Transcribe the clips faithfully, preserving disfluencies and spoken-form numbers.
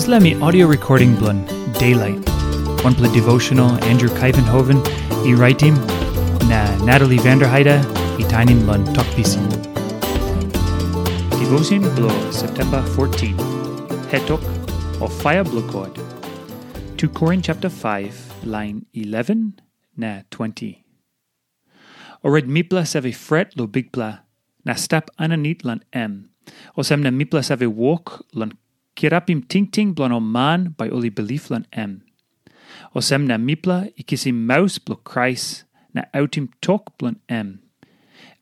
Dispela mi audio recording bilong Daylight, wanpela devotional Andrew Kaivenhoven i raitim, na Natalie Vanderheide i tainim long Tok Pisin. Devotion bilong September fourteen, Hetok o Fire bilong God. Two Korin chapter five, line eleven na twenty. Orait mipela save fret long Bikpela na stap aninit long em. Olsem na mipela save wok long kirapim tingting bilong ol man bai ol i bilip long em. Olsem na mipela i kisim maus bilong Krais na autim tok bilong em.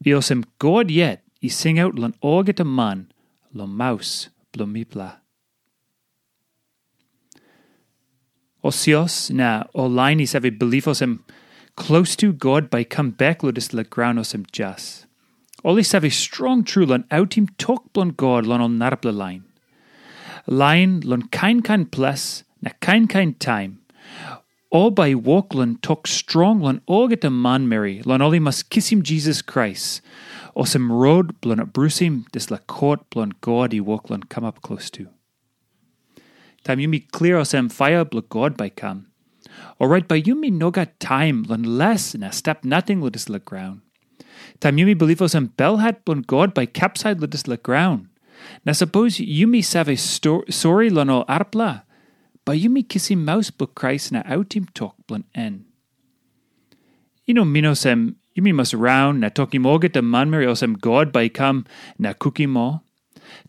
I olsem God yet i singaut long olgeta man long maus bilong mipela. Ol sios na ol lain i save bilip olsem, klostu God bai i kam bek long dispela graun olsem jas. Ol i save strong tru long autim tok bilong God long ol narapela lain. Lain long kain kain ples na kain kain taim, ol bai i wok long tok strong long olgeta manmeri, long ol i mas kisim Jisas Krais olsem rot bilong abrusim dispela kot bilong God i wok long kamap klostu. Taim yumi klia olsem paia bilong God bai i kam, orait bai yumi no gat taim long les na stap nating long dispela graun. Taim yumi bilip olsem belhat bilong God bai i kapsait long dispela graun, na sapos yumi save sto- sori long ol arapela, bai yumi kisim maus bilong Krais na autim tok bilong en. I no min olsem yumi mas raun na tokim olgeta manmeri olsem God bai i kam na kukim ol.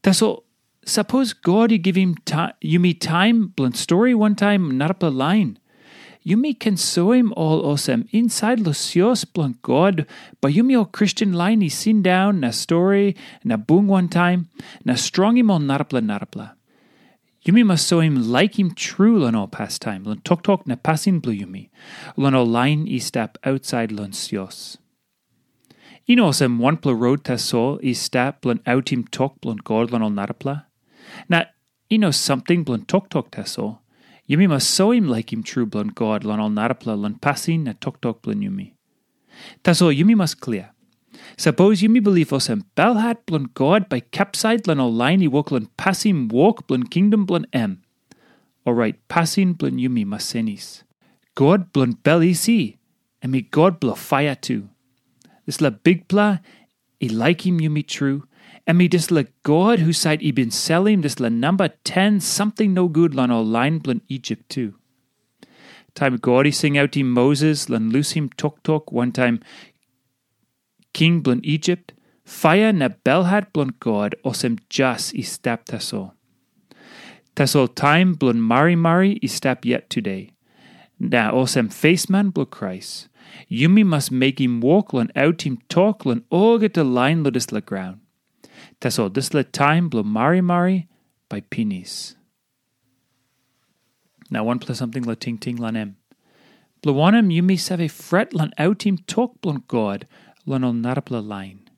Tasol sapos God i givim ta- yumi taim bilong stori wantaim narapela lain, yumi ken soim ol olsem insait long sios bilong God, bai yumi ol Kristen lain i sindaun na stori na bung wantaim na strongim ol narapela narapela. Yumi mas soim laikim tru long ol pastaim, long toktok na pasin bilong yumi, long ol lain i stap ausait long sios. I no olsem wanpela rot tasol i stap bilong autim tok bilong God long ol narapela. Na i no samting bilong toktok tasol. Yumi mas soim laikim tru bilong God long ol narapela long pasin na toktok bilong yumi. Tasol yumi mas klia. Sapos yumi bilip olsem belhat bilong God bai i kapsait long ol lain i wok long pasim wok bilong kingdom bilong em, orait pasin bilong yumi mas senis. God bilong bel isi, em i God bilong paia tu. Dispela Bikpela i laikim yumi tru, em i dispela God husat i bin selim dispela namba ten samting nogut long ol lain bilong Isip tu. Taim God i singautim Moses long lusim toktok wantaim king bilong Isip, paia na belhat bilong God olsem jas i stap tasol. Tasol taim bilong marimari i stap yet tude. Na olsem fesman bilong Krais, yumi mas mekim wok long autim tok long olgeta lain long dispela graun. Tasol dispela taim bilong marimari bai pinis. Na wanpela samting long tingting long em. Bilong wanem yumi save fret long autim tok bilong God long ol narapela lain?